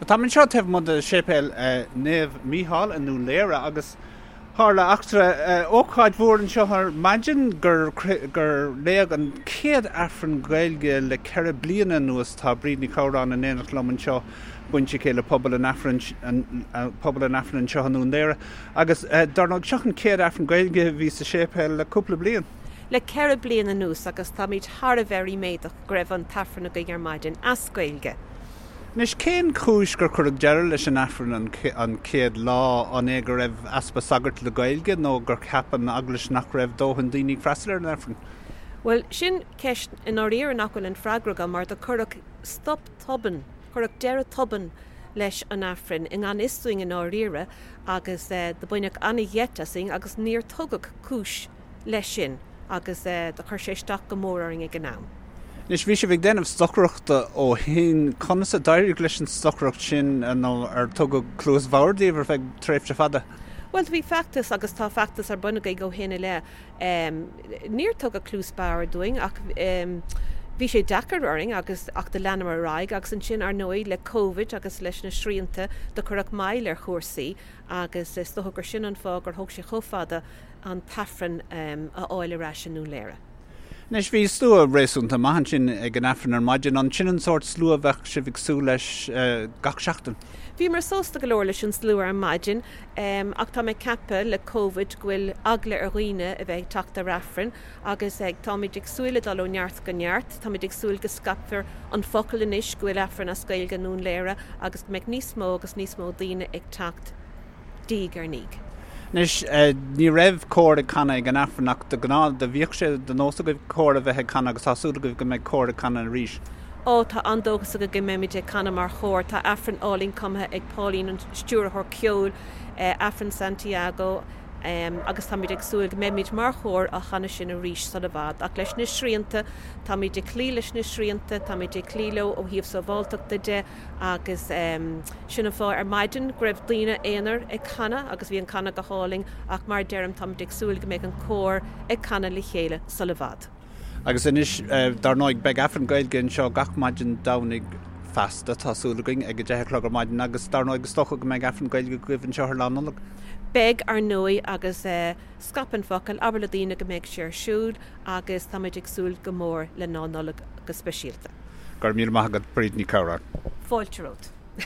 Táim anseo taobh amuigh de Séipéal Naomh Mícheál i nDún Laoghaire agus tharla eachtra, ócáid mhór anseo ar maidin gur gur léadh an chéad Aifreann Gaeilge le 4 bliana anuas. Tá Bríd Ní Chabhráin in éineacht liom anseo, bainséipléach le pobal an Aifrinn pobal an Aifrinn anseo i nDún Laoghaire agus dar ndóigh seo an chéad Aifreann Gaeilge a bhí sa séipéal le cúpla bliain. Le 4 bliana anuas agus táimid thar a bheith ríméadach go raibh an tAifreann againn ar maidin as Gaeilge. Anois, cén chúis gur cuireadh deireadh leis an Aifreann an chéad lá? An é go raibh easpa sagart le Gaeilge nó gur cheap an Eaglais nach raibh dóthain daoine ag freastal ar an Aifreann? Bhuel, sin ceist i ndáiríre nach bhfuil an freagra agam mar do cuireadh stop tobann, cuireadh deireadh tobann leis an Aifreann i ngan fhios dúinn i ndáiríre agus do baineadh an-gheit asainn agus níor tugadh cúis leis sin agus do chuir sé isteach go mór orainn ag an am. Anois, bhí sibh ag déanamh stocaireachta ó shin. Conas a d'éirigh leis an stocaireacht sin nó ar tugadh cluas bhodhar daoibh ar feadh tréimhse fada? Bhuel, bhí feachtas agus tá feachtas ar bun againn ó shin i leith. Níor tugadh cluas bhodhar dúinn ach bhí sé deacair orainn agus ach do leanamar ar aghaidh agus ansin, ar ndóigh, le Covid agus leis na srianta do cuireadh moill ar chúrsaí agus is dócha gur sin an fáth gur thóg sé chomh fada an tAifreann a fháil ar ais i nDún Laoghaire. Anois, bhí slua réasúnta maith ansin ag an Aifreann ar maidin. An sin an sórt slua a bheadh sibh ag súil leis gach seachtain? Bhíomar sásta go leor leis an slua ar maidin ach tá mé ag ceapadh le Covid go bhfuil eagla ar dhaoine a bheith ag teacht ar Aifreann agus táimid ag súil le dul ó neart go neart. Táimid ag súil go scaipfear an focal anois go bhfuil Aifreann as Gaeilge i nDún Laoghaire agus go mbeidh níos mó agus níos mó daoine ag teacht. diaidh ar ndiaidh. Anois, ní raibh cór ag canadh ag an Aifreann ach de ghnáth do bhíodh sé de nós agaibh cór a bheith ag canadh agus tá súil agaibh go mbeidh cór ag canadh arís. Ó, tá an-dóchas againn go mbeimid ag canadh mar chór. Tá Aifreann álainn cumtha ag Pauline, an stiúrthóir ceoil, Aifreann Santiago, agus táimid ag súil go mbeimid mar chór á chanadh sin arís sula bhfad. Ach leis na srianta, táimid ag cloí leis na srianta, táimid ag cloí leo ó thaobh sábháilteachta de, Agus sin an fáth ar maidin go raibh daoine aonair ag canadh agus bhí an canadh go hálainn ach mar a deirim táimid ag súil go mbeidh an cór ag canadh le chéile sula bhfad. Agus anois, dar ndóigh, beidh Aifreann Gaeilge anseo gach maidin Domhnaigh feasta, tá súil againn, ag 10 a chlog ar maidin agus dar ndóigh is dócha go mbeidh Aifreann Gaeilge agaibh anseo ar Lá Nollag. Beidh, ar ndóigh, agus scaip an focal, abair le daoine go mbeidh sé ar siúl agus táimid ag súil go mór le Lá Nollag go speisialta. Go raibh míle maith agat, Bríd Ní Chabhráin. Fáilte romhat.